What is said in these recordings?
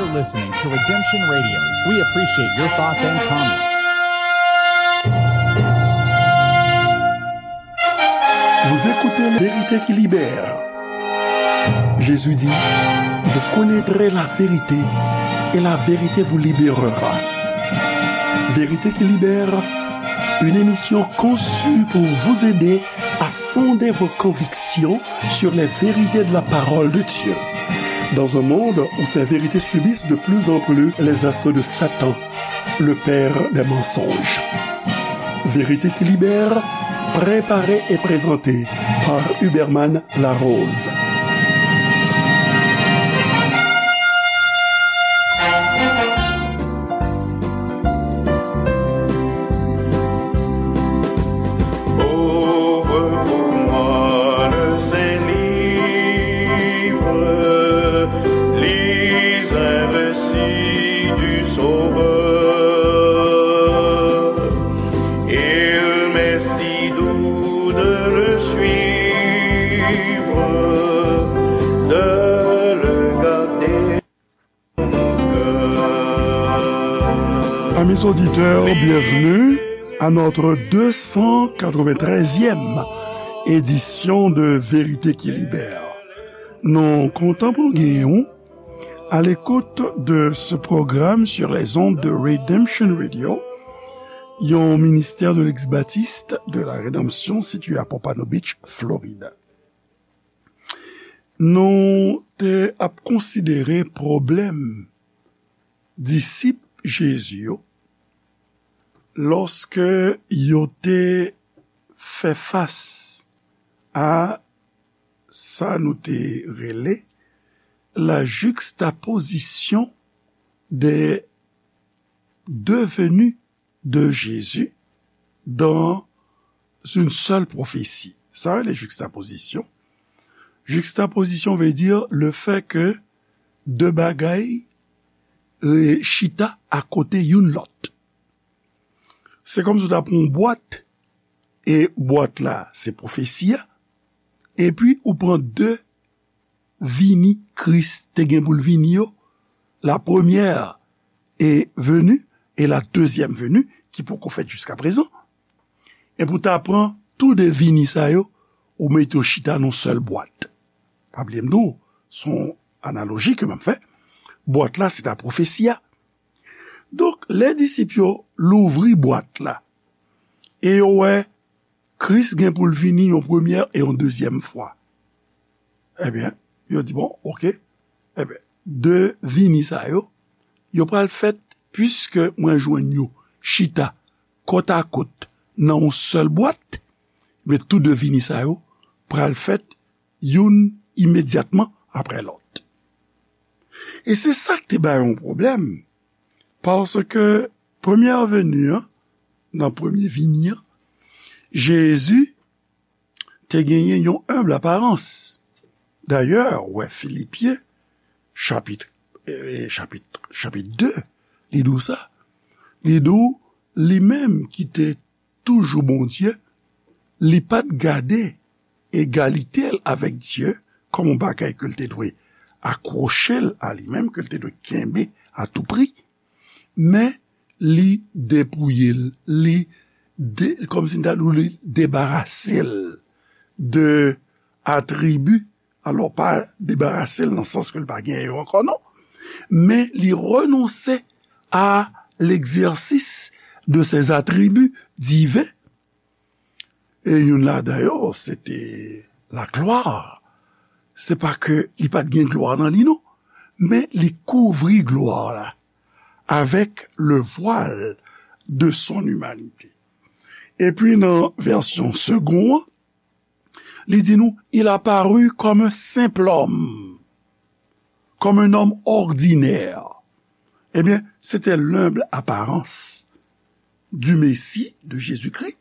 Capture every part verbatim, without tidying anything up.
You're listening to Redemption Radio. We appreciate your thoughts and comments. Vous écoutez La Vérité qui libère. Jésus dit, vous connaîtrez la vérité et la vérité vous libérera. Vérité qui libère, une émission conçue pour vous aider à fonder vos convictions sur les vérités de la parole de Dieu. Dans un monde où ces vérités subissent de plus en plus les assauts de Satan, le père des mensonges. Vérité qui libère, préparée et présentée par Huberman Larose. Ouvre pour moi le Saint Livre, lis un récit du Sauveur. Il m'est si doux de le suivre, de le garder. Amis auditeurs, bienvenue à notre deux cent quatre-vingt-treizième édition de Vérité qui Libère. Nou kontan pou n genyen w à l'écoute de ce programme sur les ondes de Redemption Radio, yon ministère de l'ex-baptiste de la Rédemption situé à Pompano Beach, Floride. Nou te ap konsidere pwoblèm disip Jezi yo lòske yo te fè fas a sa nou te rele la juxtaposition des deux venues de Jésus dans une seule prophétie. Sa rele juxtaposition. Juxtaposition veut dire le fait que de bagay e, chita akote youn lòt. Se kòmsi w ta pran yon bwat, e bwat la se pwofesi a, epi ou pran de vini Kris te gen pou l vini yo, la première est venue et la deuxième venue, ki poko fèt jiskaprezan. Epi w ta pran tou de vini sa yo, ou mete yo chita nan yon sèl bwat. Pa bliye m di w, se yon analoji ke m ap fè. Bwat la, se ta pwofesi a. Donk, lè disip yo louvri bwat la, e yo wè Kris gen pou l vini yon premyè e yon dezyèm fwa. Ebyen, yo di, bon, oke. Ebyen, de vini sa yo, yo pral fèt, piske mwen jwenn yo chita kòtakòt nan yon sèl bwat, men tou de vini sa yo pral fèt youn imedyatman apre lòt. E se sa k te bay yon pwoblèm, paske premyè veni an, nan premye vini an, Jezi te genyen yon enb aparans. Dayè, ou wè Filipyen, chapit, eh, chapit, chapit de, li di w sa. Li di w, li menm ki te toujou Bondye, li pa t gade egalite l avèk Dye kòm yon bagay ke l te dwe akwoche l a li menm, ke l te dwe kenbe a tou pri, men li depouye l, li de, kòmsi n ta di w, li debarase l de atribi, alò pa debarase l nan sans ke l pa genyen yo ankò, non, men li renonse à l'exercice de ses attributs divins. E youn ladan yo, se te laglwa. Se pa ke li pa t gen glwa nan li, non, men li kouvri glwa la avec le voile de son humanité. Epi nan vèsyon Segond an, li di nou, il apparut comme un simple homme, comme un homme ordinaire. Ebyen, se te l'humble apparence du Messie, de Jésus-Christ,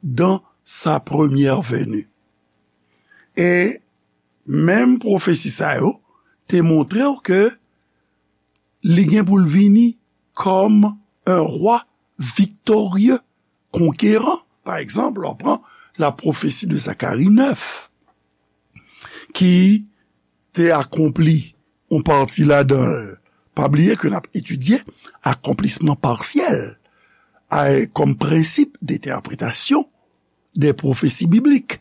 dans sa première venue. E menm pwofesi sa yo te montre w ke li gen pou l vini kòm un roi victorieux, conquérant. Pa egzanp, lè w pran la prophétie de Zacharie neuf, ki te akonpli yon pati ladan l Pa bliye ke n ap etidye akonplisman pasyèl a, kòm prensip de entèpretasyon de pwofesi biblik.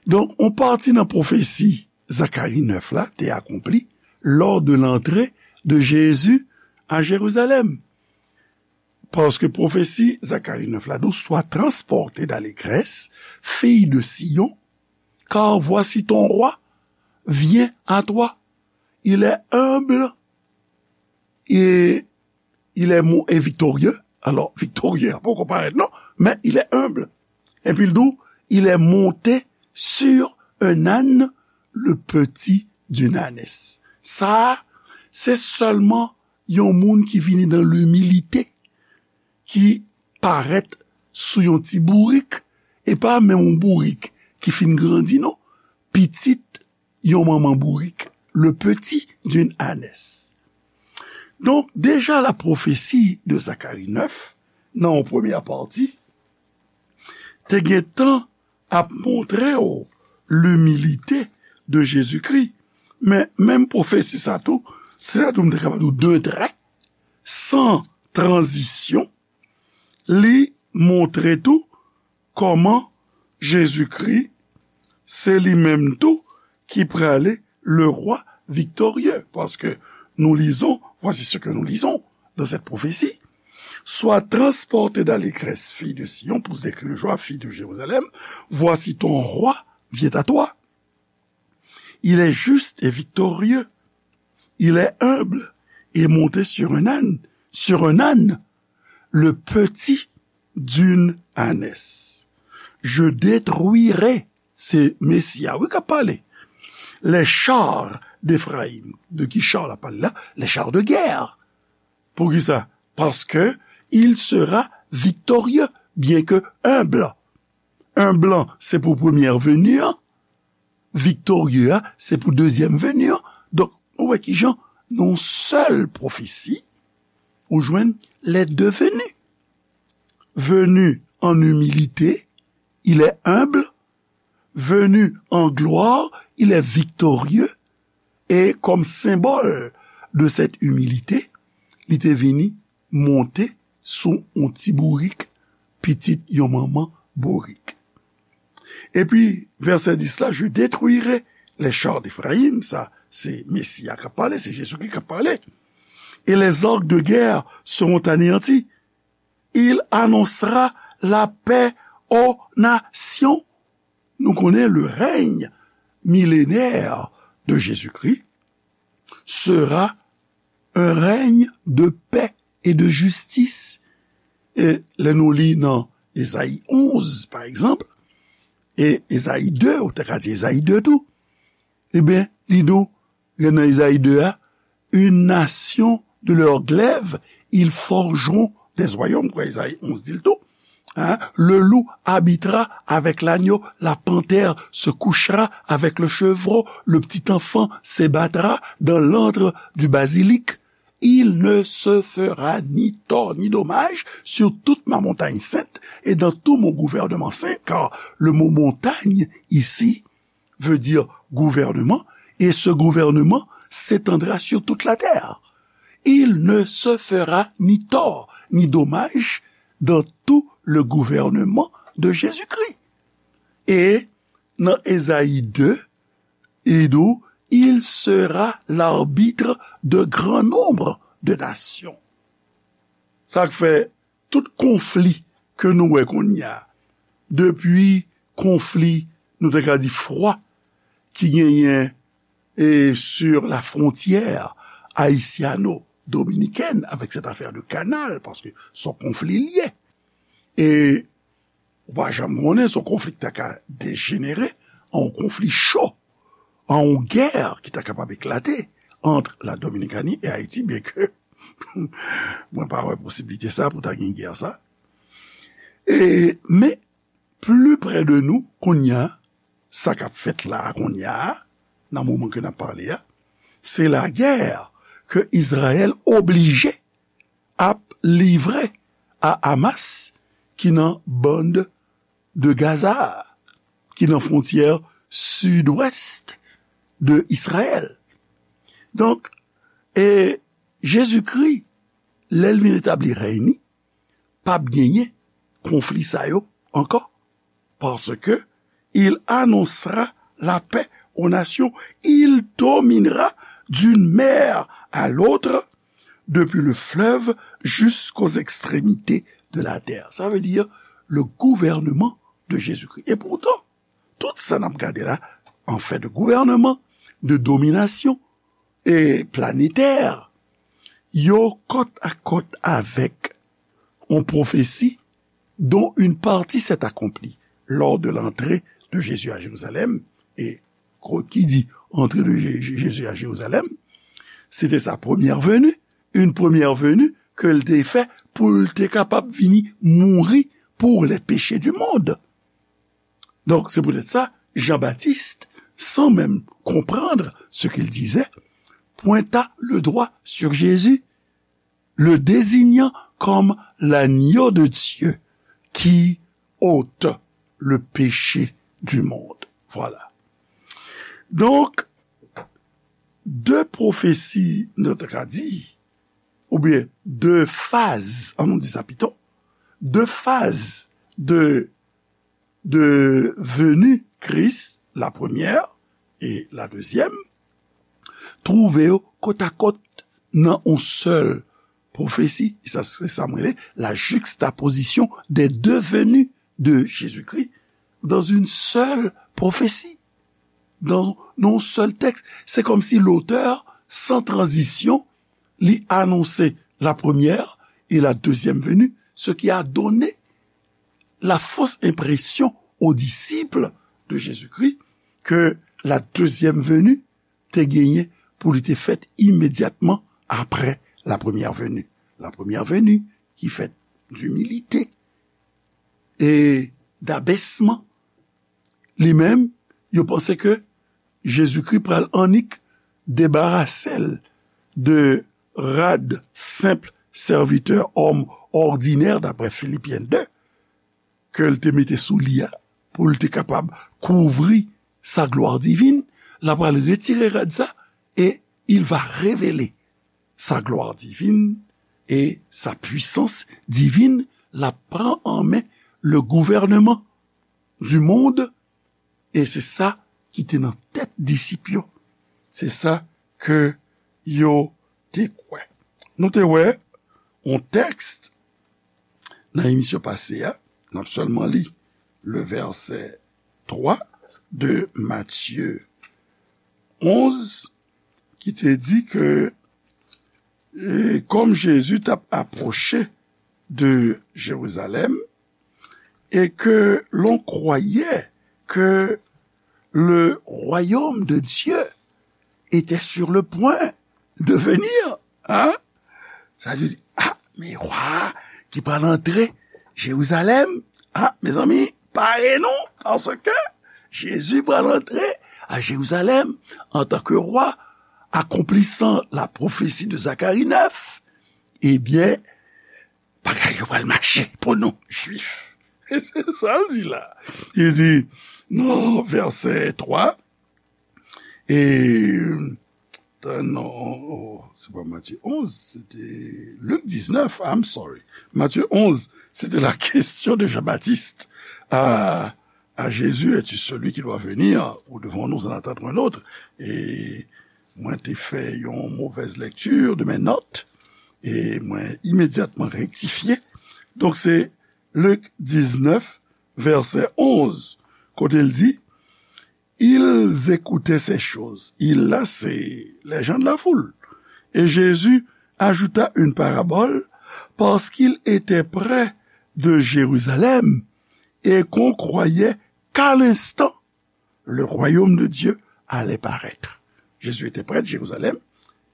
Donk, yon pati nan pwofesi Zakari nèf la te akonpli lors de l'entrée de Jésus à Jérusalem. Paske pwofesi Zakari nèf la di w, sois transportée d'allégresse, fille de Sion, car voici ton roi vient à toi. Il est humble et il est mo- et victorieux. Alò, victorieux a poko parèt non, men il est humble. Epi l di w, il est monté sur un âne, le petit d'une ânesse. Sa a, se sèlman yon moun ki vini dans l'humilité, ki parèt sou yon ti bourik, e pa menm yon bourik ki fin grandi non, pitit yon manman bourik, le petit d'une ânesse. Donk, deja la pwofesi de Zakari nèf, nan yon premyè pati, te gentan ap montre w limilite de Jezikri. Men, menm pwofesi sa tou, se la tou m te kapab di w de trè, san tranzisyon, li montre tou kòman Jezikri se li menm tou ki prale le roi victorieux. Paske nous lisons, voici ce que nous lisons dans cette prophétie. Sois transportée d'allégresse, fille de Sion, pousse des cris de joie, fille de Jérusalem. Voici ton roi vient à toi. Il est juste et victorieux. Il est humble et monté sur un âne, sur un âne, le petit d'une ânesse. Je détruirai, se Mesi a, wi, k ap pale. Les chars d'Éphraïm. De ki char l ap pale la? Les chars de guerre. Poukisa? Parce que il sera victorieux, bien que humble. Humble, se pou premyè veni an. Victorieux a, se pou dezyèm veni an. Donk, nou wè kijan, nan yon sèl pwofesi, ou jwenn les deux venus. Venu en humilité, il est humble. Venu en gloire, il est victorieux. E kòm senbòl de cette humilité, li te vini monte sou yon ti bourik, pitit yon manman bourik. Epi, vèsè dis la, je détruirai les chars d'Éphraïm, sa, se Mesi a k ap pale, se Jezikri k ap pale. Et les arcs de guerre seront anéantis. Il annoncera la paix aux nations. Nou konnen le règne millénaire de Jésus-Christ sera un règne de paix et de justice. E lè nou li nan Ezayi onz, pa egzanp, e Ezayi de, ou te ka di Ezayi de tou, ebyen, li di w, nan Ezayi de a, une nation de leur glaive, ils forgeront des royaumes, kwa Ezayi onz di l tou. Hein? Le loup habitera avec l'agneau, la panthère se couchera avec le chevreau, le petit enfant s'ébattra dans l'antre du basilic. Il ne se fera ni tort ni dommage sur toute ma montagne sainte et dans tout mon gouvernement saint, car le mot montagne ici veut dire gouvernement, et ce gouvernement s'étendra sur toute la terre. Il ne se fera ni tort ni dommage dans tout le gouvernement de Jésus-Christ. E nan Ezayi de, li di w, il sera l'arbitre de grand nombre de nations. Sa k fè tout konfli ke nou wè kounye a, depi konfli, nou te ka di fwa, ki genyen e sur la frontière haïtiano-dominicaine avec cette affaire de canal, paske se yon konfli l ye. E ou pa janm konnen se yon konfli ki ta ka dejenere an yon konfli cho, an yon gè ki ta kapab eklate ant la Dominikani e Ayiti, byenke mwen pa wè posiblite sa pou ta gen gè sa. E, men, pli pre de nou, kounye a, sa k ap fèt la a kounye a, nan moman ke n ap pale a, se lagè ke Izrayèl oblije ap livre a Hamas, ki nan bande de Gaza, ki nan fwontyè sidwès de Izrayèl. Donk, e Jezikri, lè l vin etabli rèy ni, p ap genyen konfli sa yo ankò. Parce que il annoncera la paix aux nations. Il dominera d'une mer à l'autre, depuis le fleuve jusqu'aux extrémités de la terre. Ça veut dire le gouvernement de Jésus-Christ. Et pourtant, tout sa n ap gade la, an fè de gouvènman, de dominasyon e planetè, yo kòt a kòt avèk yon pwofesi dont une partie s'est accomplie lors de l'entrée de Jésus à Jérusalem. E ki di entrée de Jé- Jésus à Jérusalem, se te sa première venue, une première venue ke l te fè pou l te kapab vini mouri pour les péchés du monde. Donc, c'est peut-être ça, Jean-Baptiste, sans même comprendre ce qu'il disait, pointa le doigt sur Jésus, le désignant comme l'agneau de Dieu qui ôte le péché du monde. Voilà. Donc, de pwofesi, nou ta ka di, oubyen de faz, ann nou di sa pito, de faz de de venue Christ, la première et la deuxième, twouve yo kòt a kòt nan yon sèl pwofesi. E sa, se sa m rele la juxtaposition des deux venues de Jésus-Christ dans une seule prophétie, dans, dans un seul texte. C'est comme si l'auteur, sans transition, li anonse la première et la deuxième venue, ce qui a donné la fausse impression aux disciples de Jésus-Christ que la deuxième venue te genyen pou li te fèt imedyatman apre la première venue. La première venue ki fèt d'humilité e d'abèsman. Li menm, yo panse ke Jezikri pral annik debarase l de rad senp sèvitè, òm òdinè, daprè Filipyen de, ke l te mete sou li a, pou l te kapab kouvri sa glwa divin, l ap pral retire rad sa, e il va révéler sa gloire divine et sa puissance divine, l ap pran an men le gouvernement du monde, e se sa ki te nan tèt disip yo. Se sa ke yo te kwè. Nou te wè yon tèks nan emisyon pase a, n ap sèlman li le vèsè twa de Matye onz, ki te di ke, e, kòm Jezi t ap apwoche de Jerizalèm, et que l'on croyait que le royaume de Dieu était sur le point de venir. Hein? Sa vle di, ah, men wa ki pral antre Jerizalèm. Ah, mezanmi, pare nou, paske Jezi pral antre a Jerizalèm antanke wa, akonplisan la pwofesi de Zakari nèf. Ebyen, bagay yo pral mache pou nou, Jwif. E se sa l di la. Li di, nan vèsè twa, e, non, se pa Matye onz, se te Lik diznèf, I'm sorry. Matye onz, se te la question de Jean-Baptiste à, à Jésus, es-tu celui qui doit venir, ou devons-nous en attendre un autre? E mwen te fè yon mauvaise lecture de mes notes, e mwen imedyatman rektifye. Donk, se Lik diznèf, vèsè onz, kote l di, Ils écoutaient ces choses. Ils la, c'est les gens de la foule. Et Jésus ajouta une parabole parce qu'il était près de Jérusalem et qu'on croyait qu'à l'instant, le royaume de Dieu allait paraître. Jésus était près de Jérusalem.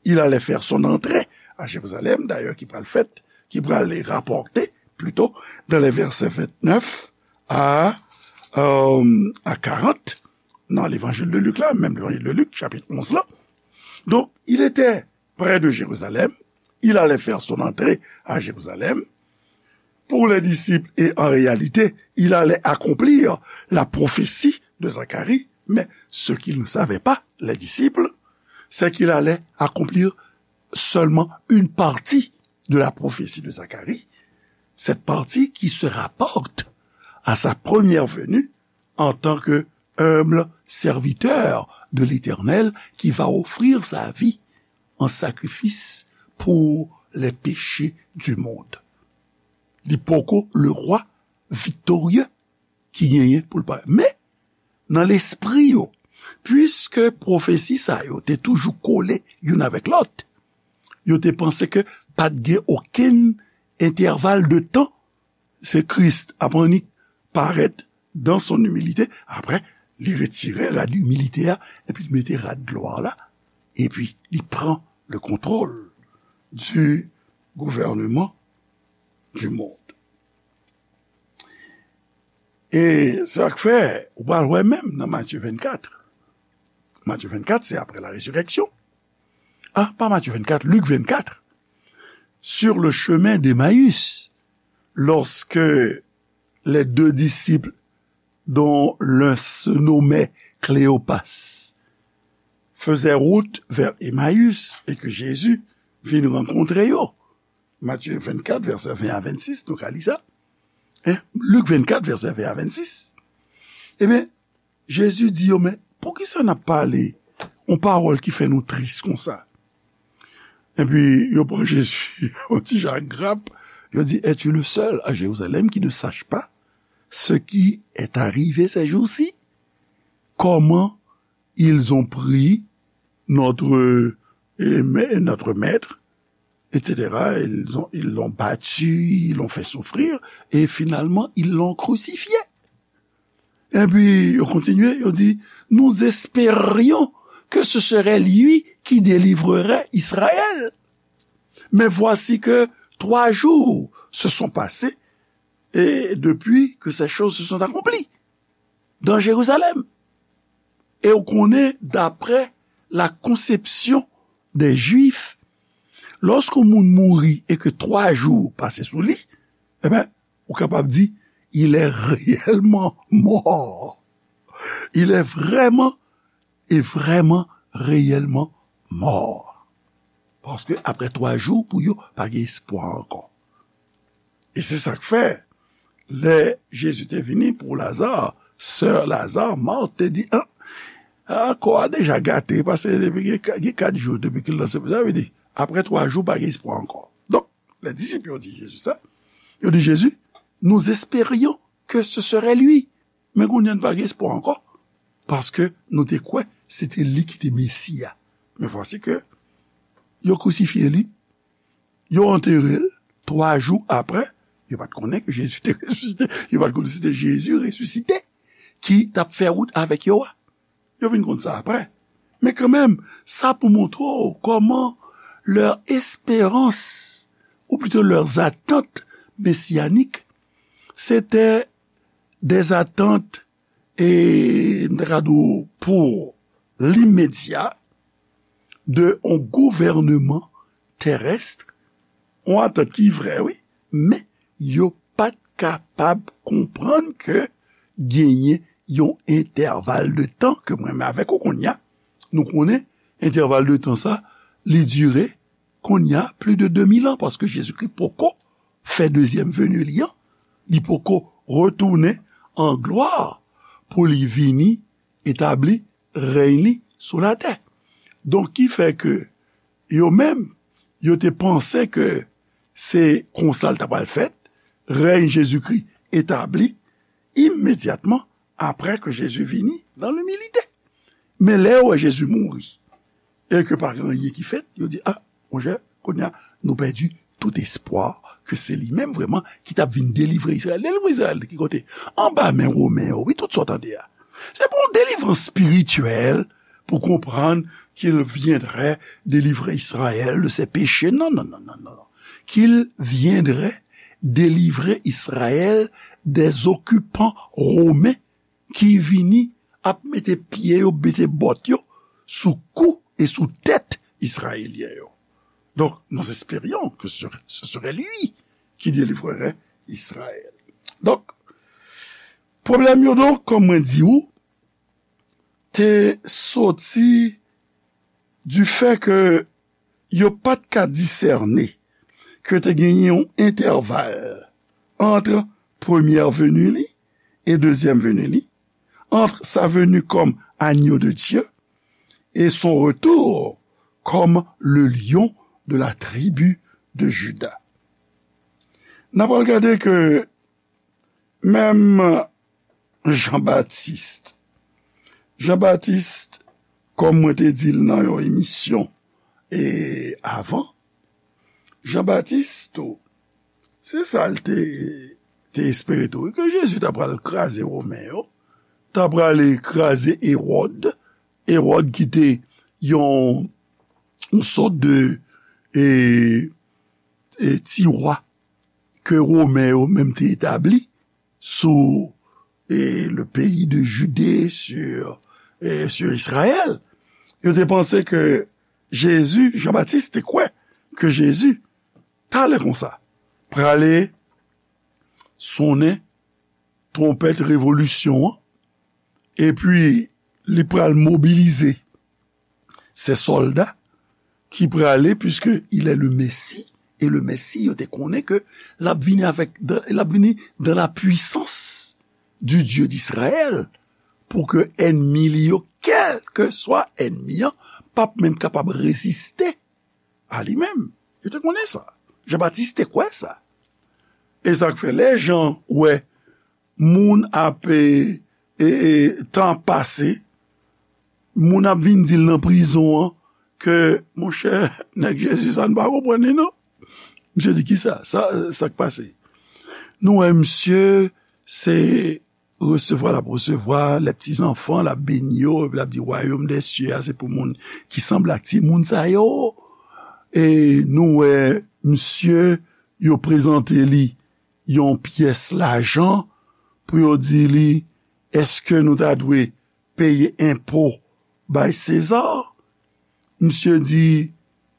Il allait faire son entrée à Jérusalem, d'ailleurs, ki pral fèt, ki pral rapòte, plito, dans les versets vingt-neuf à, euh, à quarante, nan levanjil de Lik la, menm levanjil de Lik, chapit onz la. Donc, il était près de Jérusalem, il allait faire son entrée à Jérusalem, pour les disciples, et en réalité, il allait accomplir la prophétie de Zacharie, mais ce qu'ils ne savaient pas, les disciples, c'est qu'il allait accomplir seulement une partie de la prophétie de Zacharie, cette partie qui se rapporte à sa première venue en tant que humble serviteur de l'Éternel qui va offrir sa vie en sacrifice pour les péchés du monde. Li poko le rwa viktorye ki genyen pou l parèt. Men, nan lespri yo, piske pwofesi sa yo te toujou kole youn avèk lòt, yo te panse ke pa t gen okenn entèval de tan, se Kris ap annik parèt dans son humilité, apre, li retire rad imilite a, epi li mete rad glwa la, epi li pran le contrôle du gouvernement du monde. E sa k fè, ou pral wè menm nan Matye vennkat. Matye vennkat, se apre la résurrection. Ah, pas Matthieu vingt-quatre, Luc vingt-quatre. Sur le chemin d'Emmaüs, lorsque les deux disciples, dont l'un se nommait Cléopas, faisaient route vers Emmaüs et que Jésus vint rencontrer eux. Matthieu vingt-quatre, verset vingt à vingt-six, nou ka li sa. Hein? Luc vingt-quatre, verset vingt à vingt-six. Ebyen, Jezi di yo, men poukisa n ap pale yon pawòl ki fè nou tris konsa? Epi yo pran Jezi yon ti jan grap, yo di, es-tu le seul à Jérusalem qui ne sache pas ce qui est arrivé ces jours-ci? Comment ils ont pris notre, eh, ma-, notre maître, et cetera. Ils ont, ils l'ont battu, ils l'ont fait souffrir, et finalement, ils l'ont crucifié. Epi, yo kontinye, yo di, nous espérions que ce serait lui qui délivrerait Israël. Mais voici que trois jours se sont passés et depuis que ces choses se sont accomplies dans Jérusalem. E w konnen, d'après la conception des Juifs, lòske yon moun mouri e ke twa jou pase sou li, ebyen, ou kapab di, il est réellement mort. Il est vraiment et vraiment, réellement mort. Paske apre twa jou, pou yo, pa gen espwa ankò. E se sa k fè, lè Jezi te vini pou Laza, sè Laza, Mat, te di, ah, ah, kò a deja gate, paske depi gen ka-, gen kat jou depi ke l nan sepiltè, sa vle di, apre twa jou, pa gen espwa ankò. Donk, lè disip yo di Jezi sa, yo di Jezi, nous espérions que ce serait lui. Men kounye a n pa gen espwa ankò, paske nou te kwè se te li ki te Mesi a. Men vwasi ke yo krisifye li, yo antere l, twa jou apre, yo pa t konnen ke Jezi te resisite, yo pa t konnen se te Jezi resisite ki t ap fè wout avèk yo a. Yo vin konn sa apre. Men kanmenm, sa pou montre w kòman leurs espérances, ou plutôt leurs attentes messianiques, c'était des attentes, e, m ta ka di w, pou limedya de yon gouvènman terès, yon atant ki vrè, wi, men yo pa t kapab konprann ke genyen yon entèval de tan ke mwen menm avèk ou kounye a, nou konnen entèval de tan sa, li dire kounye a plis de de mil an, paske Jezikri poko fè dezyèm veni li an, li poko retounen an glwa pou li vini etabli rèy li sou latè. Donk, ki fè ke yo menm, yo te panse ke se konsa l ta pral fèt, rèy Jezikri etabli imedyatman apre ke Jezi vini nan imilite. Men lè yo wè Jezi mouri, e ke pa gen anyen ki fèt, yo di, a, monchè, kounye a, nou pèdi tout espwa ke se li menm vrèman ki t ap vin delivre Izrayèl. Delivre Izrayèl ki kote? Anba men Women yo, wi, tout sa w tande a. Se pa yon delivrans espirityèl pour comprendre qu'il viendrait délivrer Israël de ses péchés. Non, non, non, non, non. Qu'il viendrait délivrer Israël des occupants romains ki vini ap mete pye yo, mete bòt yo sou kou e sou tèt Izrayelyen yo. Donc, nous espérions que ce, ce serait lui qui délivrerait Israël. Donk, pwoblèm yo, donk, kòm mwen di ou, te soti du fait que yo pa t ka disène ke te genyen yon entèval ant premyè veni li e dezyèm veni li, entre sa venue comme agneau de Dieu et son retour comme le lion de la tribu de Juda. N ap al gade ke menm Jan Batis, Jan Batis, kòm mwen te di l nan yon emisyon e avan, Jan Batis tou, se sa l te, te espere tou, ke Jezi ta pral kraze Women yo, ta prale kraze Ewòd, Ewòd ki te yon, yon sòt de e, e, ti wa ke Women yo menm te etabli sou e, le pays de Judée, sur, e, sur Israël. Yo te panse ke Jezi, Jan Batis te kwè ke Jezi, talè konsa, prale sonnen twonpèt revolisyon an, epi li pral mobilize se sòlda ki prale, puisque il est le Messie, e le Mesi, yo te konnen ke l ap vini avèk, l ap vini dans la puissance du Dieu d'Israël, pou ke ènmi li yo, kèlkeswa ènmi an, p ap menm kapab reziste a li menm. Yo te konnen sa. Jan Batis te kwè sa. E sa k fè lè Jan wè moun ap, e, e, e, tan ap pase, moun ap vin di l nan prizon an ke, monchè, nèg Jezi sa, n pa konprann li non. Misye di, kisa? Sa, sa k pase? Nou wè misye, se resevwa l ap resevwa, les petits enfants, l ap beni yo, epi l ap di, wayòm dè sye a, se pou moun ki sanble ak timoun sa yo. E nou wè misye, yo prezante li yon pyès lajan pou yo di li, èske nou ta dwe peye enpo bay Seza? Misye di,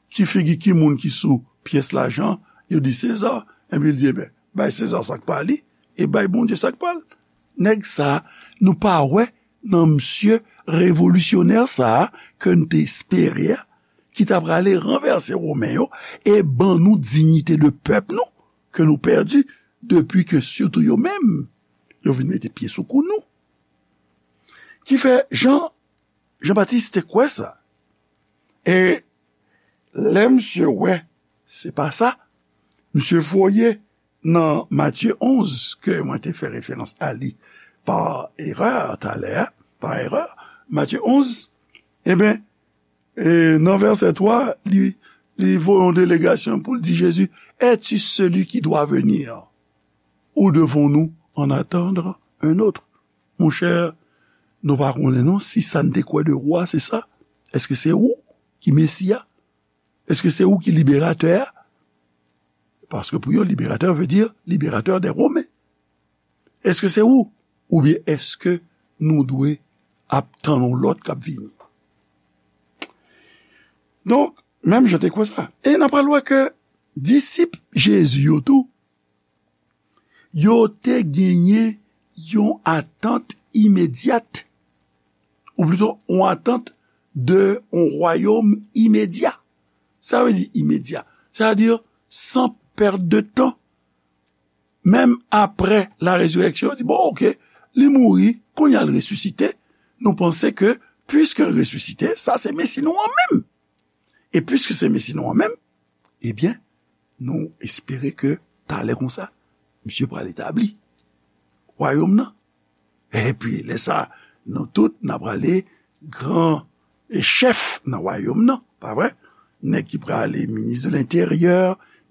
ki figi ki moun ki sou pyès lajan? Yo di, Seza. Epi l di, ebyen, bay Seza sa k pa li, e bay Bondye sa k pa l. Nèg sa, nou pa wè nan misye revolisyonè sa a ke n te espere a, ki ta prale ranvèse Women yo e ban nou diyite de pèp nou ke nou pèdi depi ke sitou yo menm, yo vin mete pye sou kou nou. Ki fè Jan, Jan Batis te kwè sa. E lè misye wè se pa sa, misye voye nan Matye onz, ke mwen te fè referans a li pa erè talè a, pa erè, Matye onz, ebyen, e nan vèsè twa, li, li voye yon delegasyon pou l di Jezi, es-tu celui qui doit venir, ou devons-nous en attendre un autre? Monchè, nou pa konnen non si sa n te kwè de ou a, se sa. Èske se ou ki Mesi a? Èske se ou ki liberatè a? Paske pou yo, liberatè vle di liberatè dè Women. Èske se ou? Oubyen èske nou dwe ap tann yon lòt k ap vini? Donk, menm jan te kwè sa. E n ap pral wè ke disip Jezi yo tou, yo te genyen yon atant imedyat, ou plito yon atant de yon wayòm imedya. Sa vle di imedya. Sa vle di san pèt de tan. Menm apre la rezireksyon, yo di, bon, oke, li mouri, kounye a l resisite. Nou panse ke, piske l resisite, sa se Mesi nou an menm. E piske se Mesi nou an menm, ebyen, nou espere ke talè konsa, misye pral etabli wayòm nan. Epi, lè sa, nou tout, n a prale gran e chèf nan wayòm nan, pa vre? Nèg ki prale minis de lenteryè,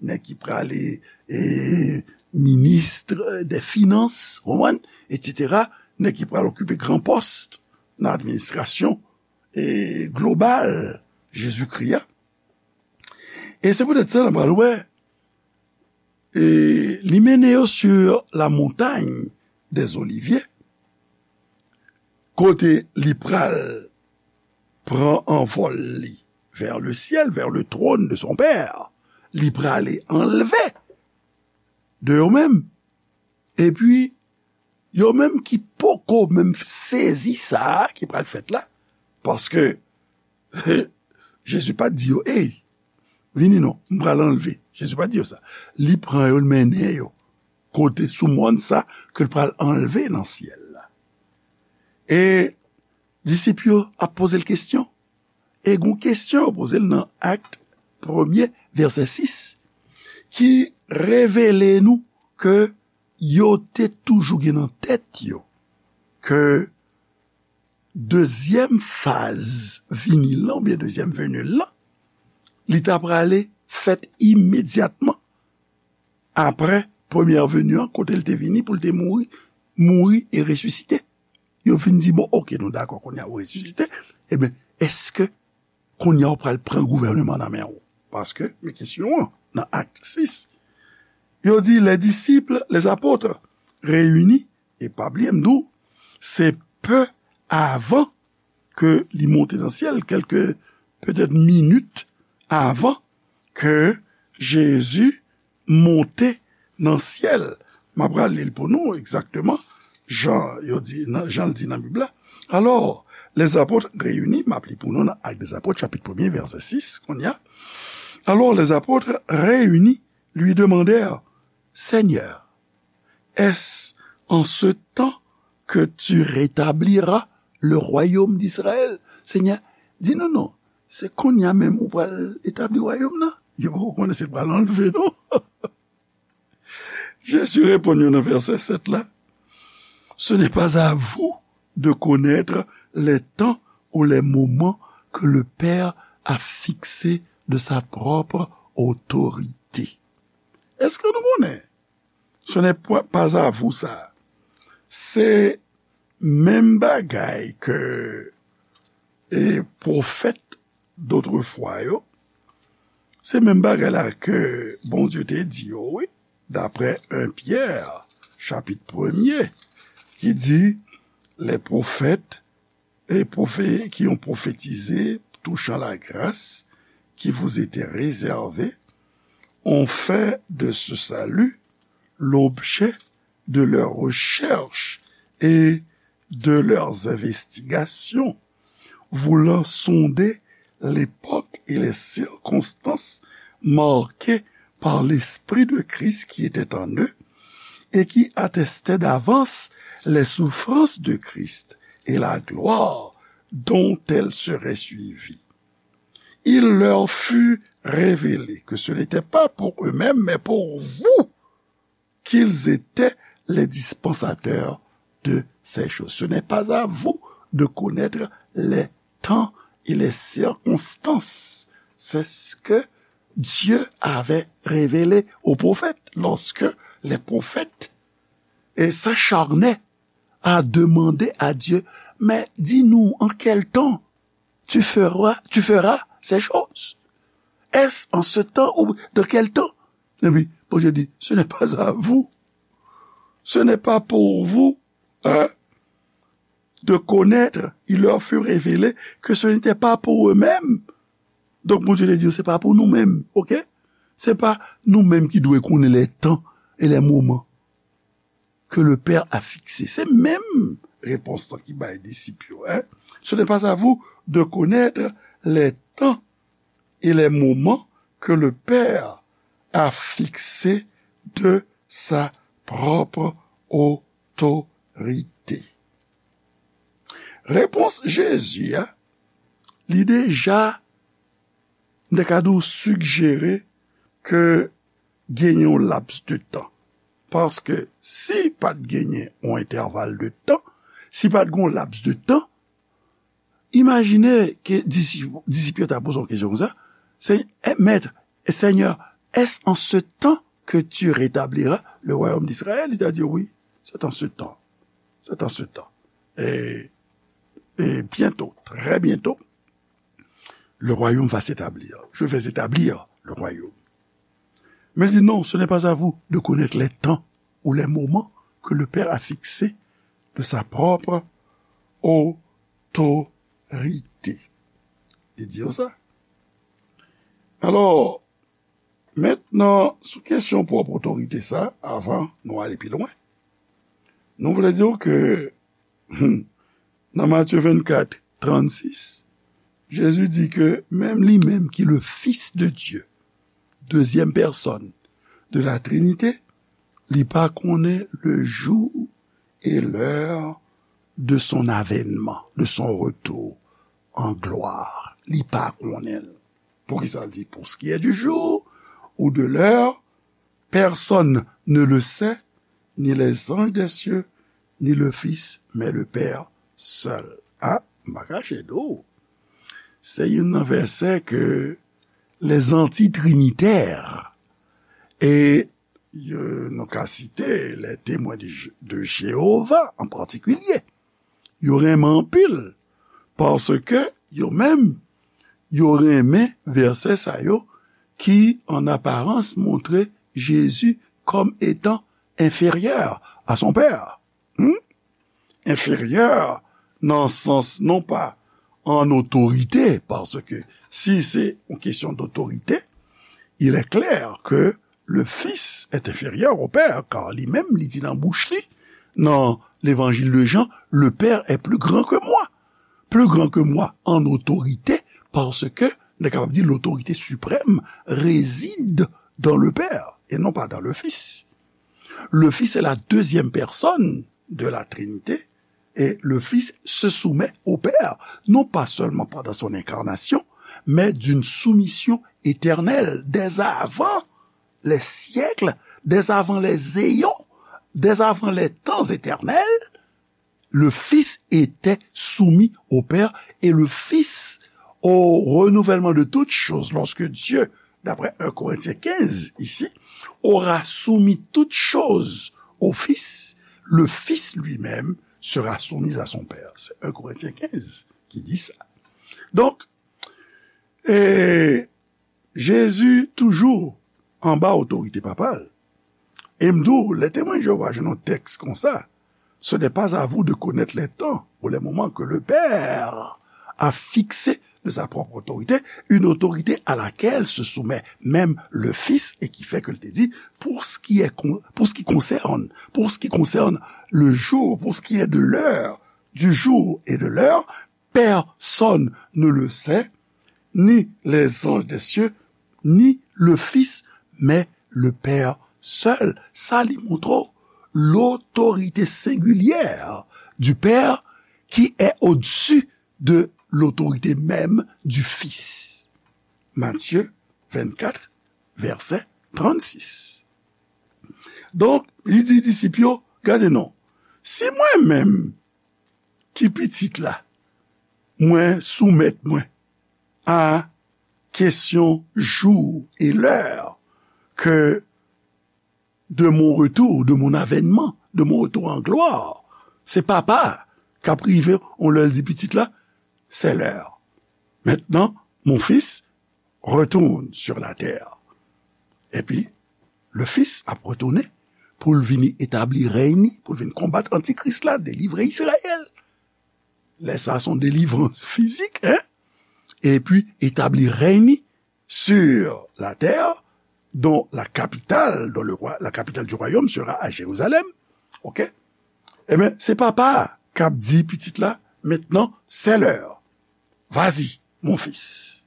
nèg ki prale, e, minis dè finans, w konprann? Etsetera. Nèg ki pral okipe gran pòs nan administrasyon, e, global Jezikri a. E se poutèt sa, n a pral wè, e, li mennen yo sur la montagne des Oliviers, kote li pral pran anvòl li vers le ciel, vers le trône de son Père. Li prale anlve de yo menm. Epi, yo menm ki poko menm sezi sa a ki pral fèt la, paske Jezi pa t di yo, ey, vini non, m pral anlve. Jezi pa di yo sa. Li pran yo, l mennen yo kote sou mòn sa ke l pral anlve nan syèl la. E disip yo ap poze l kesyon. E gon kesyon yo poze l nan Ak premye, vèsè sis, ki revele nou ke yo te toujou gen nan tèt yo ke dezyèm faz vini l lan, oubyen dezyèm veni l lan, li ta prale fèt imedyatman apre premyè veni an, kote l te vini pou l te mouri, mouri e resisite. Yo fin di, bon, oke, nou dakò, kounye a ou resisite, ebyen, èske kounye a ou pral pran gouvènman nan men w? Paske, men kesyon an, nan Ak sis, yo di, les disciples, les apôtres réunis, e pa bliye m di w, se pe avan ke li monte nan syèl, kèlke petèt minit avan ke Jezi monte nan syèl. M ap rale l pou nou egzakteman jan yo di, nan, jan l di nan Bib la. Alors, les apôtres réunis, m ap li pou nou nan Actes des Apôtres, chapit premye, vèsè sis, kounye a. Alors, les apôtres réunis lui demandèrent, Seigneur, est-ce en ce temps que tu rétabliras le royaume d'Israël? Senyè, di nou non, se kounye a menm ou pral etabli wayòm nan? Yo poko konnen si l pral anlve non. Jezi reponn yo nan vèsè sèt la, Ce n'est pas à vous de connaître les temps ou les moments que le Père a fixés de sa propre autorité. Èske nou konnen? Ce n'est pas à vous sa. Se menm bagay ke e pwofèt dotrefwa yo, se menm bagay la ke Bondye te di yo, wi, daprè en Pyè, chapit premye, ki di, les prophètes et prophètes qui ont prophétisé touchant la grâce qui vous était réservée ont fait de ce salut l'objet de leurs recherches et de leurs investigations, voulant sonder l'époque et les circonstances marquées par l'Esprit de Christ qui était en eux et qui attestait d'avance les souffrances de Christ et la gloire dont elles seraient suivies. Il leur fut révélé que ce n'était pas pour eux-mêmes, mais pour vous, qu'ils étaient les dispensateurs de ces choses. Ce n'est pas à vous de connaître les temps et les circonstances. C'est ce que Dieu avait révélé aux prophètes lorsque les prophètes s'acharnaient à demander à Dieu, mais dis-nous en quel temps tu feras, tu feras ces choses. Est-ce en ce temps ou dans quel temps? Epi Bondye di, ce n'est pas à vous. Ce n'est pas pour vous, hein, de connaître. Il leur fut révélé que ce n'était pas pour eux-mêmes. Donk Bondye te di, se pa pou nou menm, oke? Se pa nou menm ki dwe konnen les temps et les moments que le Père a fixés. Se menm repons lan ki bay disip yo, hein. Ce n'est pas à vous de connaître les temps et les moments que le Père a fixés de sa propre autorité. Repons Jezi a, li deja, m te ka di w, sigjere ke genyen yon laps de tan. Paske si pa t genyen yon entèval de tan, si pa t gen yon laps de tan, imajine ke disip, disip yo ta poze yon kesyon konsa, se, eh, Maître, Seigneur, est-ce en ce temps que tu rétabliras le royaume d'Israël? Li ta di, oui, c'est en ce temps. C'est en ce temps. Et, et bientôt, très bientôt, le royaume va s'établir. Je vais établir le royaume. Mais il dit, non, ce n'est pas à vous de connaître les temps ou les moments que le Père a fixés de sa propre autorité. Li di yo sa. Alò, mentnan, sou kesyon pwòp otorite sa, avan nou ale pi lwen, nou vle di w ke, hmm, nan Matye vennkat, trannsis, Jezi di ke menm li menm ki le Fils de Dieu, deuxième personne de la Trinité, li pa konnen le jour et l'heure de son avènement, de son retour en gloire. Li pa konnen l. Poukisa l di, pour ce qui est du jour ou de l'heure, personne ne le sait, ni les anges des cieux, ni le Fils, mais le Père seul. A, m pa kache di w. Se youn nan vèsè ke les anti-trinitaires, e yo, nou ka site les Témoins de, de Jéhovah an patikilye, yo renmen anpil, paske yo menm, yo renmen vèsè sa yo ki, en apparence, montre Jésus comme étant inférieur à son Père. Hmm? Inférieur nan sans non pas en autorité, parce que si c'est une question d'autorité, il est clair que le Fils est inférieur au Père, car li menm, li di nan bouch li, nan l'évangile de Jean, le Père est plus grand que moi. Plus grand que moi en autorité, parce que, nou kapab di, l'autorité suprême réside dans le Père et non pas dans le Fils. Le Fils est la deuxième personne de la Trinité, et le Fils se soumet au Père, non pas seulement pendant son incarnation, mais d'une soumission éternelle, dès avant les siècles, dès avant les éons, dès avant les temps éternels, le Fils était soumis au Père et le Fils au renouvellement de toutes choses, lorsque Dieu, d'après un Corinthiens quinze ici, aura soumis toutes choses au Fils, le Fils lui-même sera soumis à son Père. C'est un Corinthiens quinze qui dit ça. Donc, et Jezi toujou anba otorite Papa l. E m di w, lè Temwen Jewova jwenn yon tèks konsa, ce n'est pas à vous de connaître les temps ou les moments que le Père a fixés de sa propre autorité, une autorité à laquelle se soumet même le Fils, et qui fait que l te di, pour ce qui est con-, pour ce qui concerne, pour ce qui concerne le jour, pour ce qui est de l'heure, du jour et de l'heure, personne ne le sait, ni les anges des cieux, ni le Fils, mais le Père seul. Sa li montre w, l'autorité singulière du Père qui est au-dessus de l'autorité même du Fils. Matthieu vingt-quatre, verset trente-six. Donk, li di disip yo, gade non, si mwen menm ki pitit la, mwen soumèt mwen a kesyon jou e lè ke de mon retour, de mon avènman, de mon retour en gloire. Se Papa k ap rive, on lè l di pitit la, c'est l'heure. Maintenant, mon fils, retourne sur la terre. Epi, le Fils ap retounen pou l vini etabli rèy ni, pou l vin konbat antikris la, delivre Izrayèl. Lè sa, se yon delivrans fizik, hein? Epi, etabli rèy ni sur la terre, dont la capitale, dont le roi, la capitale du royaume sera à Jérusalem. Ok? Ebyen, se Papa a k ap di pitit la, maintenant, c'est l'heure. Vas-y, mon fils.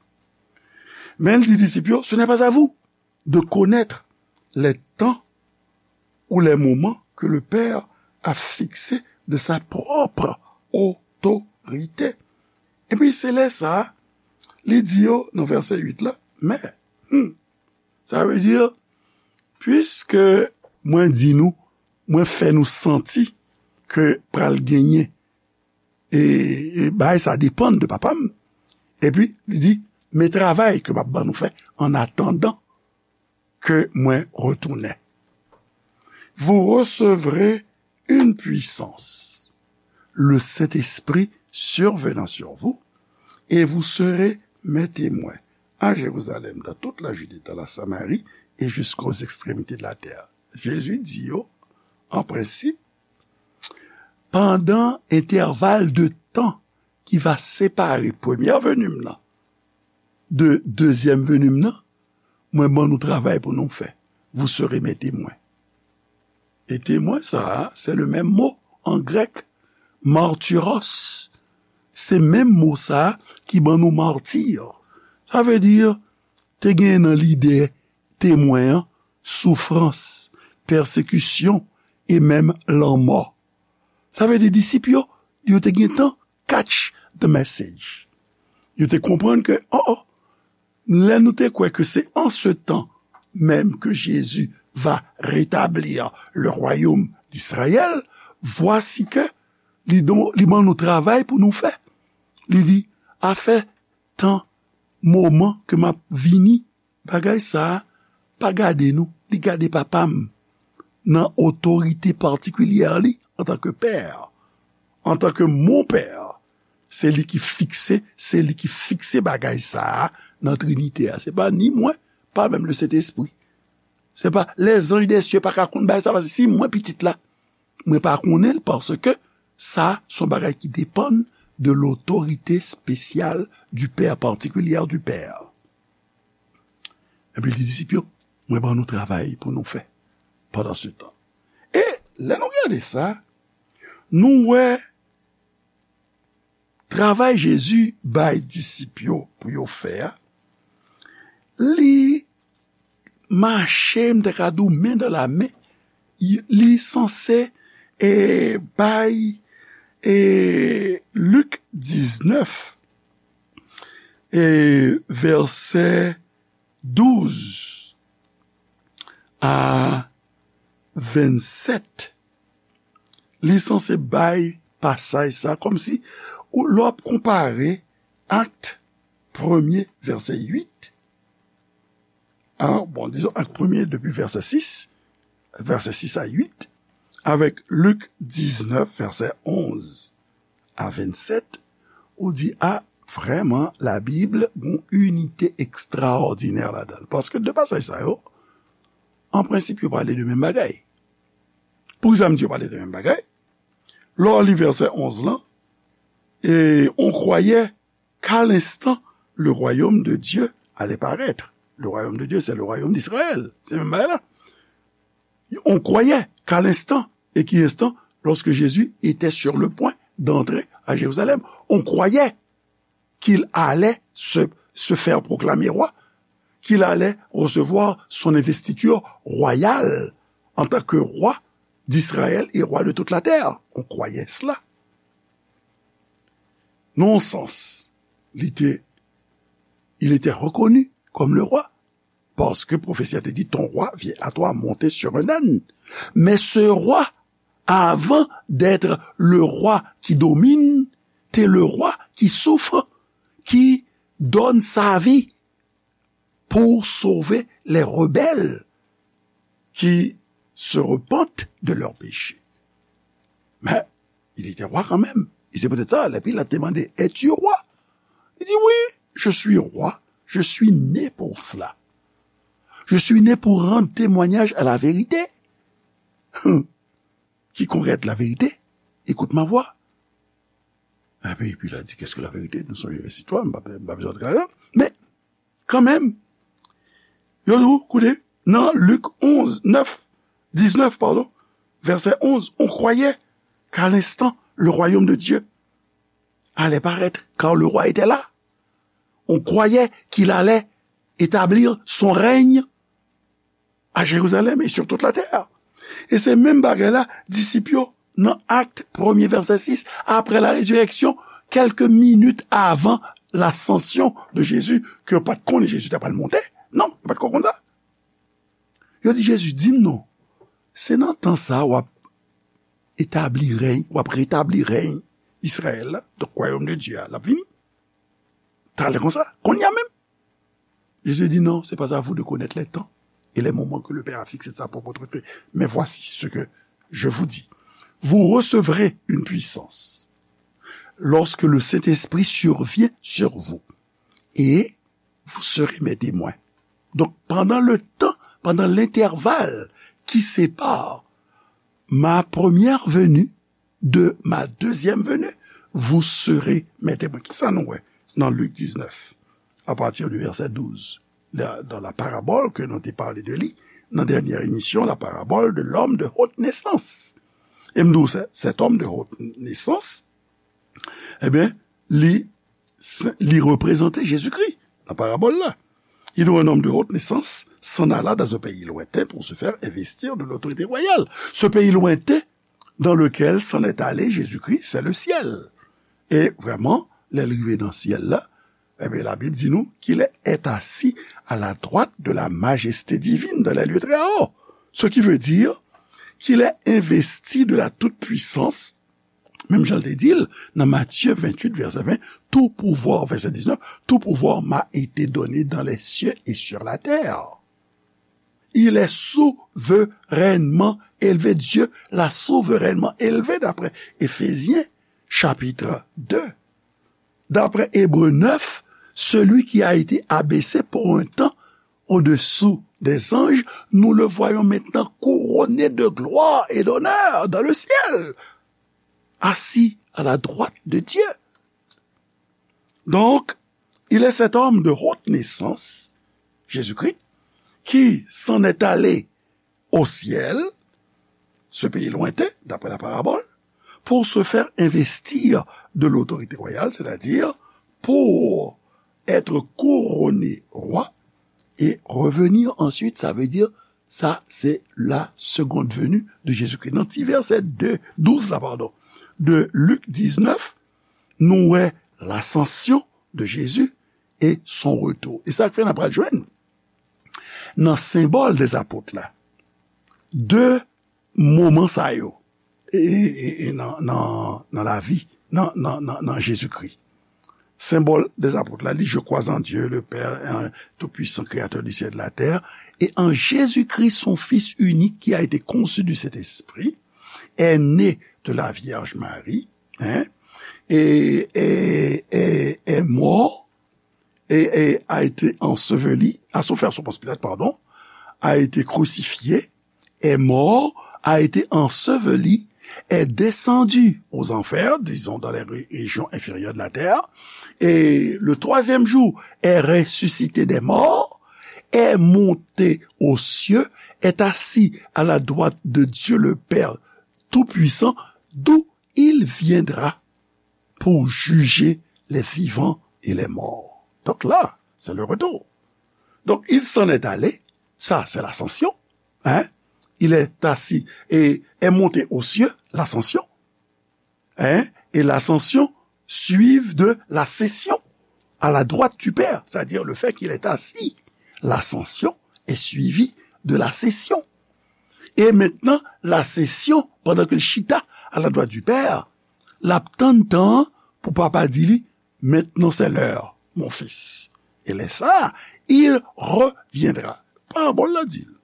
Men l di disip yo, ce n'est pas à vous de connaître les temps ou les moments que le Père a fixés de sa propre autorité. Epi se lè sa, li di yo nan vèsè uit la, men, hmm, sa vle di, piske mwen di nou, mwen fè nou santi ke pral genyen e, e bagay sa depann de Papa m. Epi, li di, men travay ke m ap ban nou fè, an atandan ke mwen retounen. Vous recevrez une puissance, le Saint-Esprit survenant sur vous, et vous serez mes témoins à Jérusalem, dans toute la Judée, dans la Samarie et jusqu'aux extrémités de la terre. Jezi di yo, an prensip, pandan entèval de tan ki va separe premyè veni m nan de dezyèm veni m nan, mwen ban nou travay pou nou fè. Vous serez mes témoins. E temwen sa a, se le menm mo an grèk, martyros. Se menm mo sa a ki ban nou mati. Sa vle di, te gen nan lide temwen an, soufrans, pèsekisyon e menm lanmò. Sa vle di disip yo, yo te gentan catch the message. Yo te konprann ke, oh, oh, lè nou te kwè ke c'est en ce temps même que Jésus va rétablir le royaume d'Israël, voici que li, don, li ban nou travay pou nou fè. Li di, afè tan, moman ke m ap vini, bagay sa a pa gade nou, li gade Papa m nan otorite patikilyè li antanke Pè, antanke mon Pè. Se li ki fikse, se li ki fikse bagay sa a nan Trinite a. Se pa ni mwen, pa menm Lesentespri. Se pa lèzanj dè sye pa ka konn bagay sa, paske si mwen pitit la, mwen pa konnen l, paske sa se yon bagay ki depann de l'autorité spéciale du Père, particulière du Père. Epi li di disip yo, mwen ban nou travay pou nou fè pandan se tan. E lè nou gade sa, nou wè travay Jezi bay disip yo pou yo fè a, li mache, m ta ka di w, men dan la men, li sanse, e, bay, e, Lik diznèf, e, vèsè douz a vennsèt, li sanse bay pasaj sa, kòmsi ou, lè w ap konpare Akt premye, vèsè uit, a, bon, dizon, Akt premye depi vèsè sis, vèsè sis a uit, avèk Lik diznèf, vèsè onz a vennsèt, ou di, a, vrèman, Labib gon inite ekstraòdinè ladan l. Paske de pasaj sa yo, an prensip, yo pale de menm bagay. Poukisa m di yo pale de menm bagay? Lè w li vèsè onz lan, e, on croyait qu'à l'instant le royaume de Dieu allait paraître. Le royaume de Dieu, c'est le royaume d'Israël. Se menm bagay la. On croyait qu'à l'instant, et qui instant, lorsque Jésus était sur le point d'entrer à Jérusalem, on croyait qu'il allait se, se faire proclamer roi, qu'il allait recevoir son investiture royale en tant que roi d'Israël et roi de toute la terre. On croyait cela. Nan yon sans, li te, il était reconnu comme le roi, parce que profesi a te di, ton roi vient à toi monté sur un âne. Mais ce roi, avant d'être le roi qui domine, t'es le roi qui souffre, qui donne sa vie pour sauver les rebelles qui se repentent de leurs péchés. Mais il était roi quand même. Et c'est peut-être ça, lè Pilat te mande, es-tu roi? Il dit, oui, je suis roi. Je suis né pour cela. Je suis né pour rendre témoignage à la vérité. Quiconque est la vérité, écoute ma voix. Epi, epi la di, qu'est-ce que la vérité? Nou sonje vèsè twa, m pa, m pa bezwen antre ladan. Men, kanmenm, yo di w, koute, nan Lik onz, nèf, diznèf, pardon, vèsè onz, on croyait qu'à l'instant, le royaume de Dieu allait paraître, car le roi était là. On croyait qu'il allait établir son règne à Jérusalem et sur toute la terre. E se menm bagay la, disip yo, nan Akt premye, vèsè sis, après la résurrection, quelques minutes avant l'ascension de Jésus, ke yo pa t konnen Jezi ta pral monte. Non, yo pa t konn sa. Yo di Jezi, di m non, se nan tan sa w ap etabli rèy, w ap retabli rèy Izrayèl la, donk, wayòm de Dye a, l ap vini. Talè konsa, kounye a menm. Jésus dit, non, c'est pas à vous de connaître les temps et les moments que le Père a fixés de sa propre autorité. Mais voici ce que je vous dis. Vous recevrez une puissance lorsque le Saint-Esprit survient sur vous. Et vous serez mes témoins. Donc, pendant le temps, pendant l'intervalle qui sépare ma première venue de ma deuxième venue, vous serez mes témoins. Kisa nou wè nan Lik diznèf, a pati di vèsè douz, la, dans la parabole que nou te pale de li nan dènyè emisyon, la parabole de l'homme de haute naissance. E m di w, cet homme de haute naissance, ebyen, li, li reprezante Jezikri nan parabòl la. Il est un homme de haute naissance, s'en alla dans un pays lointain pour se faire investir de l'autorité royale. Ce pays lointain dans lequel s'en est allé Jésus-Christ, c'est le ciel. E vrèman, lè l rive nan syèl la, ebyen, Labib di nou qu'il est assis à la droite de la majesté divine dans les lieux très hauts. Ce qui veut dire qu'il est investi de la toute-puissance, menm jan l te di l nan Matye venntuit, vèsè ven, tout pouvoir, vèsè diznèf, tout pouvoir m'a été donné dans les cieux et sur la terre. Il est souverainement élevé. Dieu l'a souverainement élevé, d'après Éphésiens chapitre deux. D'après Hébreux neuf, celui qui a été abaissé pour un temps au-dessous des anges, nous le voyons maintenant couronné de gloire et d'honneur dans le ciel, assis à la droite de Dieu. Donc, il est cet homme de haute naissance, Jésus-Christ, qui s'en est allé au ciel, ce pays lointain, d'après la parabole, pour se faire investir de l'autorité royale, c'est-à-dire pour être couronné roi et revenir ensuite, ça veut dire, ça c'est la seconde venue de Jésus-Christ. Nan ti vèsè de, douz la, pardon, de Lik diznèf, nou wè l'ascension de Jésus et son retour. E sa k fè n ap pral jwenn nan senbòl dè apot la, de moman sa yo, e, e, e, e nan, nan, nan lavi, nan, nan, nan, nan Jezikri. Symbole des apôtres, là, dit, je crois en Dieu, le Père, un tout-puissant, créateur du ciel et de la terre, et en Jésus-Christ, son Fils unique, qui a été conçu du Saint-Esprit, est né de la Vierge Marie, hein, et, et, et est mort, et, et a été enseveli, a souffert sous Ponce Pilate, pardon, a été crucifié, est mort, a été enseveli, est descendu aux enfers, disons dans les ré-, régions inférieures de la terre, et le troisième jour est ressuscité des morts, est monté aux cieux, est assis à la droite de Dieu le Père Tout-Puissant, d'où il viendra pour juger les vivants et les morts. Donc là, c'est le retour. Donc, il s'en est allé, ça, c'est l'ascension, hein? Il est assis et est monté aux cieux, l'ascension, hein? Et l'ascension suivent de la session à la droite du Père, c'est-à-dire le fait qu'il est assis. L'ascension est suivie de la session. E mentnan, lasesyon, pandan ke l chita à la droite du Père, l ap tann tan an pou Papa di li, maintenant c'est l'heure, mon fils. E lè sa a, il reviendra. Parabòl la di l,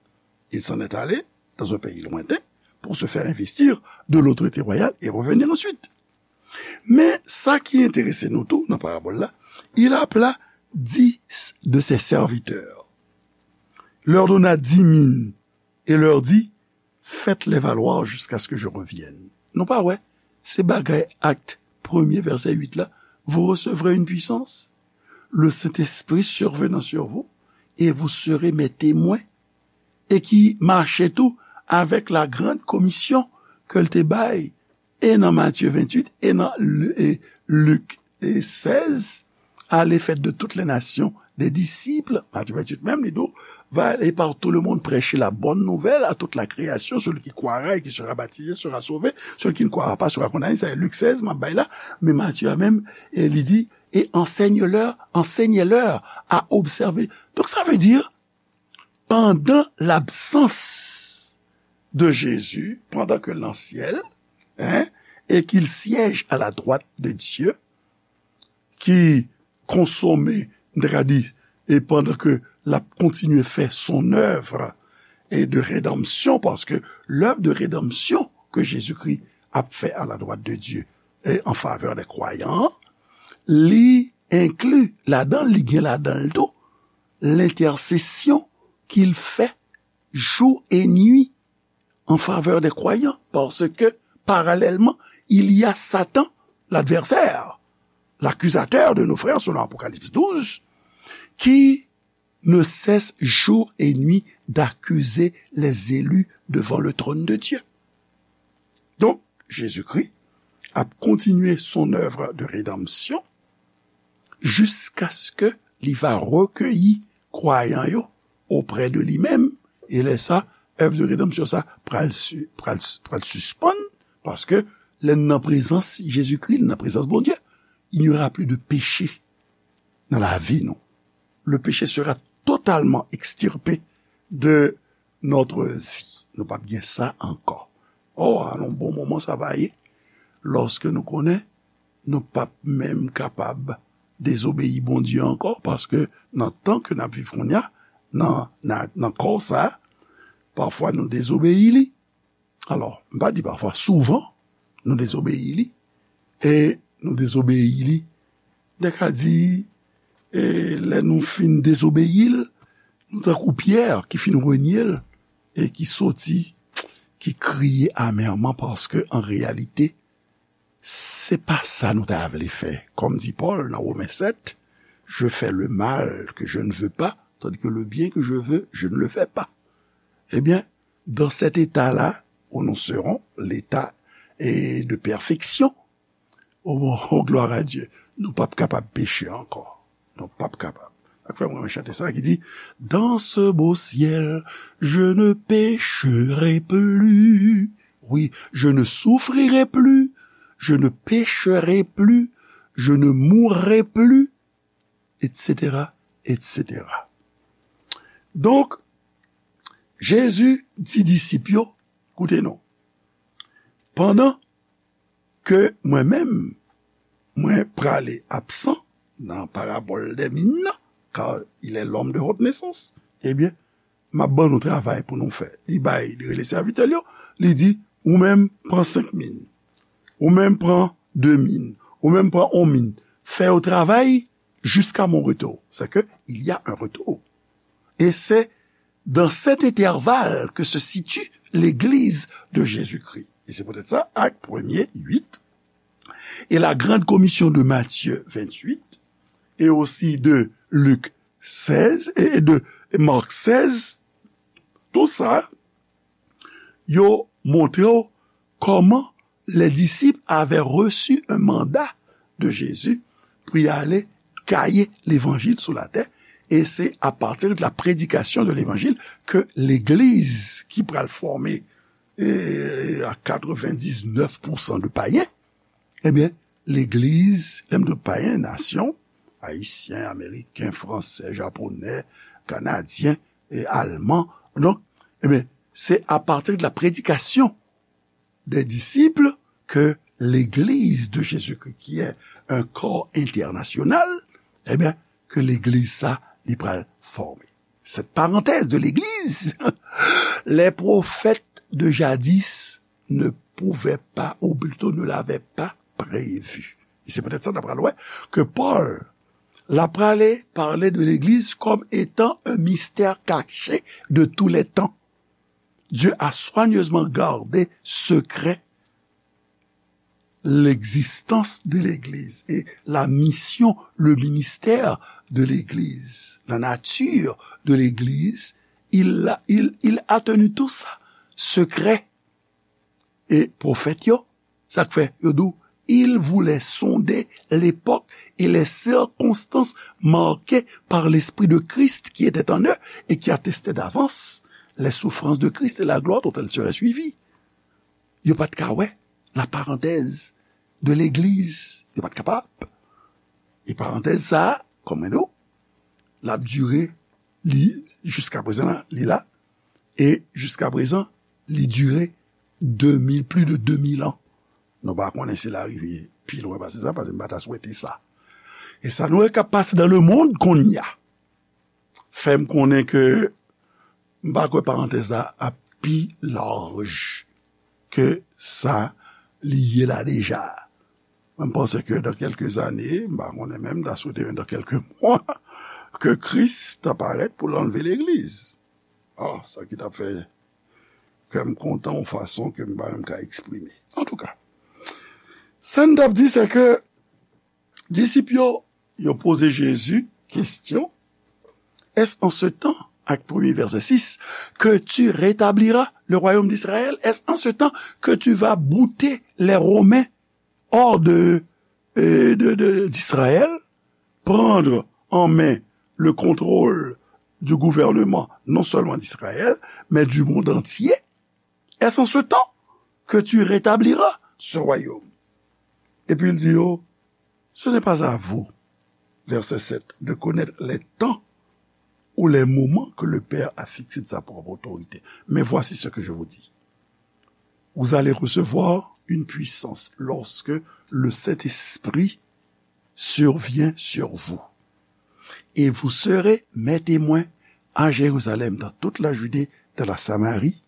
il s'en est allé dans un pays lointain pour se faire investir de l'autorité royale et revenir ensuite. Men sa ki enterese nou tou nan parabòl la, il appela dix de ses serviteurs, leur donna dix mines et leur dit, faites-les valoir jusqu'à ce que je revienne. Nou pa wè, se bagay Actes premier, verset huit la, vous recevrez une puissance, le Saint-Esprit survenant sur vous, et vous serez mes témoins. E ki mache tou avèk la grande commission ke l te bay, e nan Matye venntuit, e nan Lu-, e Lik, e sèz, allez, faites de toutes les nations des disciples. Matye venntuit menm, li di w, va aller par tout le monde, prêcher la bonne nouvelle à toute la création. Celui qui croira et qui sera baptisé sera sauvé. Celui qui ne croira pas sera condamné. Sa se Lik sèz, m ap bay la. Men Matye a menm, e li di, et enseignez-leur, enseignez-leur à observer. Donc, ça veut dire, pandan labsans de Jezi, pandan ke l nan syèl, hein, et qu'il siège à la droite de Dieu, ki konsome, n ta ka di, e pandan ke l ap kontinye fè son œuvre et de rédemption, paske l'œuvre de rédemption ke Jezikri ap fè à la droite de Dieu et en faveur des croyants, li enkli ladan l, li gen ladan l tou, l'intercession qu'il fait jour et nuit en faveur des croyants, parce que, parallèlement, il y a Satan, l'adversaire, l'accusateur de nos frères, selon Apocalypse douze, qui ne cesse jour et nuit d'accuser les élus devant le trône de Dieu. Donk, Jezikri ap kontinye son œuvre de rédemption jiskaske li va rekeyi kwayan yo oprè de li menm, e lè sa, èv de redanmsyon sa pral, pral, pral sispann, paske lè n nan prezans Jezikri, nan prezans Bondye, il n'y aura plus de péché dans la vie, non. Le péché sera totalement extirpé de notre vie. Nou p ap gen sa ankò. Oh, alon bon moman sa va ye, lòske nou konnen nou p ap menm kapab dezobeyi Bondye ankò, paske nan tan ke n ap viv kounye a, nan, nan, nan kò sa, pafwa nou dezobeyi li. Alò, m pa di pafwa, souvan, nou dezobeyi li, e nou dezobeyi li, m te ka di, e lè nou fin dezobeyi l, nou tankou Pyè ki fin renye l, e ki soti, ki kriye amèman, paske an reyalite, se pa sa nou ta vle fè. Kòm di Pòl nan Women sèt, je fais le mal que je ne veux pas, tandis que le bien que je veux, je ne le fais pas. Ebyen, dans cet état-là où nous serons, l'état, eh, de perfection, oh, oh, gloire à Dieu, nou p ap kapab peche ankò. Nou p ap kapab. Sa k fè mwen renmen chante sa ki di, dans ce beau ciel, je ne pécherai plus. Oui, je ne souffrirai plus, je ne pécherai plus, je ne mourrai plus, et cetera, et cetera. Donk, Jezi di disip yo, koute non, pandan ke mwen menm, mwen prale absan nan parabòl dè min nan, car il est l'homme de haute naissance, ebyen, m ap ban nou travay pou nou fè. Li bay, li rele sèvitè l yo, li di, ou menm pran senk min, ou menm pran de min, ou menm pran on min. Fè yo travay jusqu'à mon retour. C'est que il y a un retour. Et c'est dans cet intervalle que se situe l'Église de Jésus-Christ. Et c'est peut-être ça, Actes premier, huit, et la Grande Commission de Matthieu vingt-huit, et aussi de Luc seize, et de Marc seize, tout ça, yo montre w kòman les disciples avaient reçu un mandat de Jésus pou y ale gaye levanjil sou latè, e se a partir de la prédication de l'évangile ke legliz ki pral fòme, e, a katrevendiznèf pousan de payen, ebyen, legliz, lè m di payen, nasyon, ayisyen, ameriken, fransè, japonè, kanadyen, e alman. Donk, ebyen, se a partir de la prédication des disciples que l'Église de Jésus-Christ, qui est un corps international, ebyen, ke legliz sa, li pral fòme. Cette parenthèse de l'Église, les prophètes de jadis ne pouvaient pas, ou plutôt ne l'avaient pas prévu. Et c'est peut-être ça, d'après loi, que Paul, la prale parler de l'Église comme étant un mystère caché de tous les temps. Dieu a soigneusement gardé secret l'existence de l'Église et la mission, le ministère de l'Église, la nature de l'Église, il a, il, il a tenu tout ça secret. E pwofèt yo, sa k fè yo di w, il voulait sonder l'époque et les circonstances marquées par l'Esprit de Christ qui était en eux et qui attestait d'avance les souffrances de Christ et la gloire dont elles seraient suivies. Yo pa t ka wè la parenthèse de l'église. Yo pa t kapab. E parantèz sa a, kòm mwen di w, l ap dire, li, jiskaprezan la, li la. E jiskaprezan, li dire de mil, plis de de mil an. Nou pa konnen si l a rive pi lwen pase sa, paske m pa ta swete sa. E sa nou wè k ap pase dans le monde kounye a fè m konnen ke m pa kwè parantèz la ap pi laj ke sa li ye la deja. Mwen, m panse ke dans quelques années, m pa konnen menm, m ta swete dans quelques mois, ke Kris ta parèt pou l anlve legliz. Ah, sa ki t ap fè kè m kontan yon fason ke m pa menm ka eksprime. Antouka, sa n t ap di, se ke disip yo, yo poze Jezi kesyon, est-ce en ce temps, Acte premier, verset six, que tu rétabliras le royaume d'Israël? Est-ce en ce temps que tu vas bouter les Romains hors de, euh, de, de, d'Israël, prendre en main le contrôle, du gouvernement, non seulement d'Israël, mais du monde entier. Est-ce en ce temps que tu rétabliras ce royaume? Et puis il dit, oh, ce n'est pas à vous, verset sept, de connaître les temps ou les moments que le Père a fixés de sa propre autorité. Mais voici ce que je vous dis. Vous allez recevoir une puissance lorsque le Saint-Esprit survient sur vous. Et vous serez mes témoins à Jérusalem, dans toute la Judée, dans la Samarie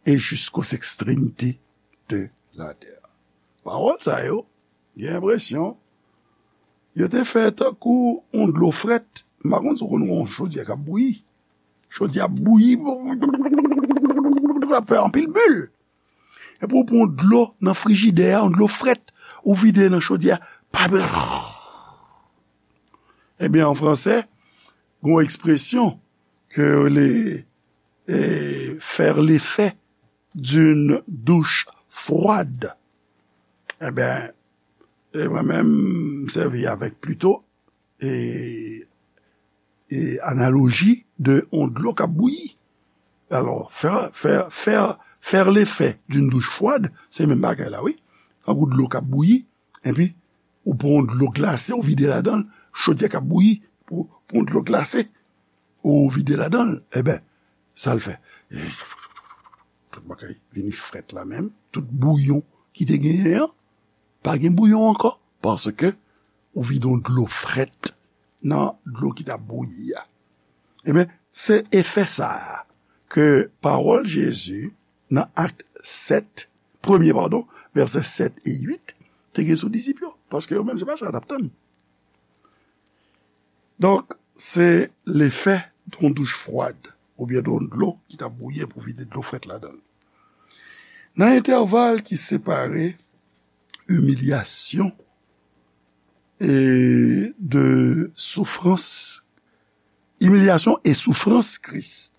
et jusqu'aux extrémités de la terre. Pawòl sa yo, gen enpresyon, yo te fè tankou yon dlo frèt. M pa konn si w konn yon chodyè k ap bouyi. Chodyè ap bouyi, l ap fè anpil bil. Epi w pran dlo nan frijidè a, yon dlo frèt, ou vide nan chodyè a. Pa... Ebyen, an fransè, gen yon ekspresyon ke yo rele, eh, faire l'effet d'une douche froide. Ebyen, e mwen menm, m sèvi avèk plito e, e analoji de yon dlo k ap bouyi. Alò, fè, fè, fè, fè lefè d'une douche froide, se menm bagay la, wi. Tankou dlo k ap bouyi, epi ou pran yon dlo glase, ou vide ladan l, chodyè k ap bouyi, pou, pou yon dlo glase, ou vide ladan l, ebyen, sa l fè? Tout bagay vini frèt la menm, tout bouyon ki te genyen an, pa gen bouyon ankò, paske ou vide yon dlo frèt nan dlo ki t ap bouyi a. Ebyen, se efè sa a ke pawòl Jezi nan Ak sèt, premye, padon, vèsè sèt e uit, te gen sou disip yo, paske yo menm, se pa sa yo t ap tann. Donk, se lefè de yon douch fwad, oubyen de yon dlo ki t ap bouyi pou vide dlo frèt ladan l. Nan entèval ki separe imilyasyon e de soufrans, imilyasyon e soufrans Kris,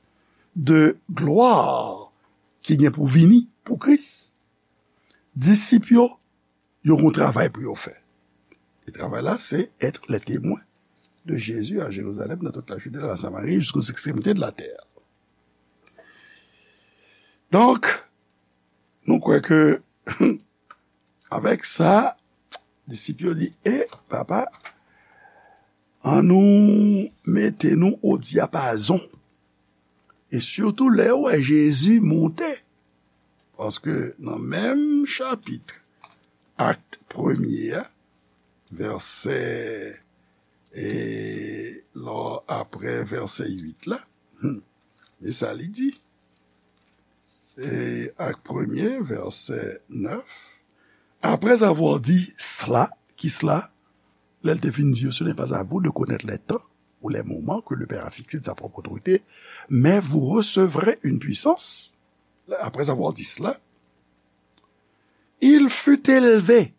de glwa ki gen pou vini pou Kris, disip yo, yo gen yon travay pou yo fè. E travay la, se être les témoins de Jésus à Jérusalem, dans toute la Judée, dans la Samarie, jusqu'aux extrémités de la terre. Donk, nou kwè ke avèk sa, disip yo di, e, papa, annou mete nou o dyapazon. E sitou lè yo wè Jezi monte. Paske nan menm chapit, Ak premye a, vèsè, e, lò, apre vèsè uit la, hmm, men sa li di. E, Ak premye, vèsè nèf. Après avoir dit cela, ki sela? Lè l te fin di yo, ce n'est pas à vous de connaître les temps ou les moments que le Père a fixés de sa propre autorité, mais vous recevrez une puissance. Après avoir dit cela, il fut élevé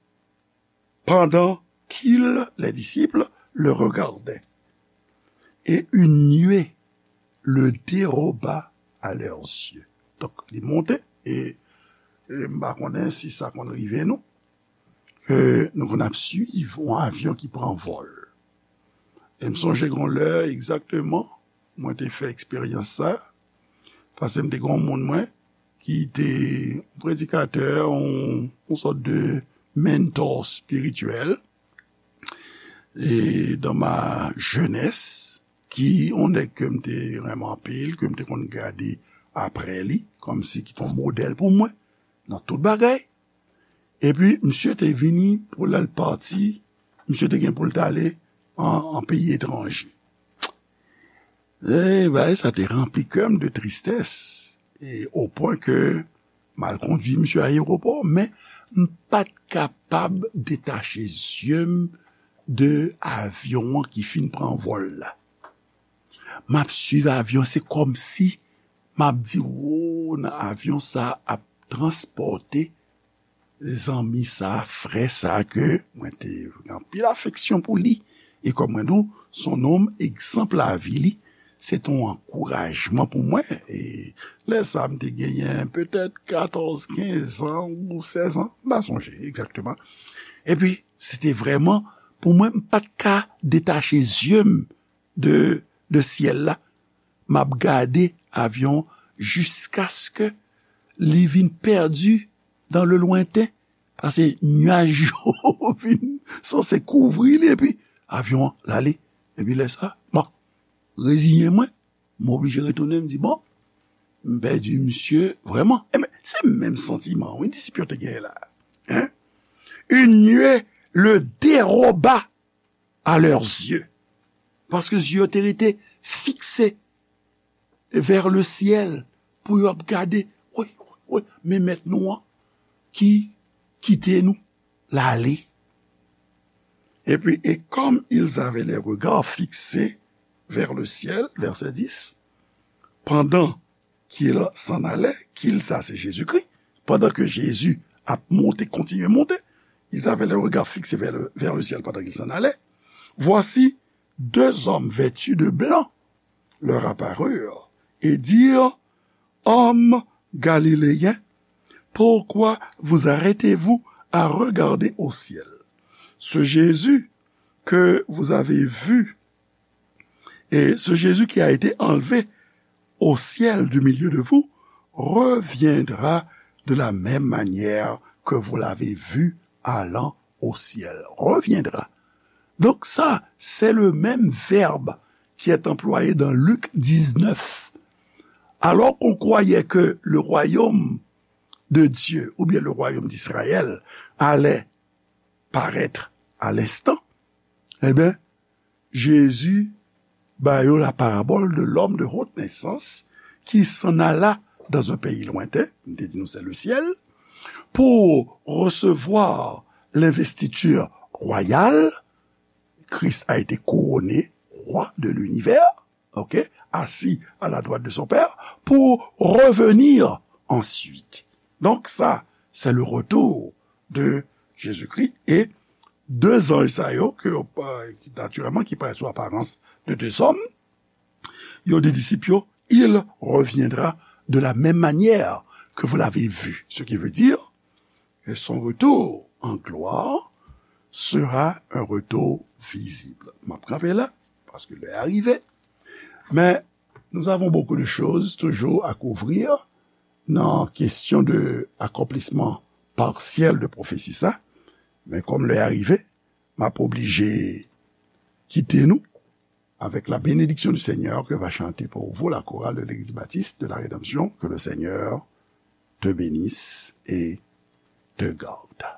pendant qu'ils, les disciples, le regardaient. Et une nuée le déroba à leurs yeux. Donk, li monte, e, e m pa konnen si sa konn rive nou, ke nou konn ap swiv yon avyon ki pran vòl. E m sonje gen yon lè egzakteman, mwen te fè eksperyans sa, paske m te gen yon moun mwen ki te yon predikatè, yon, yon sòt de mentor espirityèl, e dans ma jeunesse, ki yon nèg ke m te renmen anpil, ke m te konn gade apre li, kòmsi ki te yon modèl pou mwen, nan tout bagay. Epi, misye te vini pou lè l pati, misye te gen pou l t ale an, an peyi etranje. E bagay sa te ranpli kè m de tristès, e o pwen ke m al kondui misye ayewopò, men m pa t kapab detache zye m de avyon an ki fin pran vòl la. M ap swiv avyon, se kòmsi m ap di, wo, nan avyon sa ap transpòte zanmi sa, frè sa ke mwen te gen anpil afeksyon pou li. E kòm mwen di w, se yon nonm egzanp lavi li, se te yon ankourajman pou mwen. E lè sa a, m te genyen petèt katòz, kenz an ou sèz an, m pa sonje egzakteman. Epi, se te vrèman, pou mwen, m pa t ka detache zye m de, de syèl la. m ap gade avyon jiskaske li vin pèdi dans le lointain, paske nyaj yo vin sanse kouvri li, epi avyon an l ale. Epi lè sa, bon, reziyen mwen, m oblije retounen, m di, bon, m pèdi misye vrèman. Enben, se menm santiman, wi, disip yo te genyen la. Hein? Une nuée le déroba à leurs yeux. Paske zye yo te rete fikse vers le ciel, pou yo ap gade, wi, wi, men mèt nou an ki kite nou, l ale. Et puis, et comme ils avaient les regards fixés vers le ciel, verset dix, pendant qu'il s'en allait, qu'il, sa se Jezikri, pandan ke Jezi ap monte, kontinye monte, ils avaient les regards fixés vers le, vers le ciel pendant qu'il s'en allait. Voici, deux hommes vêtus de blanc leur apparurent et dirent, Hommes galiléens, pourquoi vous arrêtez-vous à regarder au ciel? Ce Jésus que vous avez vu, et ce Jésus qui a été enlevé au ciel du milieu de vous, reviendra de la même manière que vous l'avez vu allant au ciel. Reviendra. Donc ça, c'est le même verbe qui est employé dans Luc dix-neuf. Alors qu'on croyait que le royaume de Dieu, ou bien le royaume d'Israël, allait paraître à l'instant, eh bien, Jésus ba yo la parabole de l'homme de haute naissance qui s'en alla dans un pays lointain, m te di nou se le ciel, pour recevoir l'investiture royale. Christ a été couronné roi de l'univers, ok, assis à la droite de son Père, pour revenir ensuite. Donc ça, c'est le retour de Jésus-Christ. Et deux anges sa yo, ke, euh, ki, naturellement, qui paraissent sous apparence de deux hommes, yo di disip yo, il reviendra de la même manière que vous l'avez vu. Ce qui veut dire que son retour en gloire sera un retour visible. M ap kanpe la, paske lè a rive. Men, nous avons beaucoup de choses toujours à couvrir nan kesyon de akonplisman parsyèl de pwofesi sa. Men kòm lè a rive, m ap oblije kite nou avec la bénédiction du Seigneur que va chanter pour vous la chorale de l'Église baptiste de la Rédemption. Que le Seigneur te bénisse et te garde.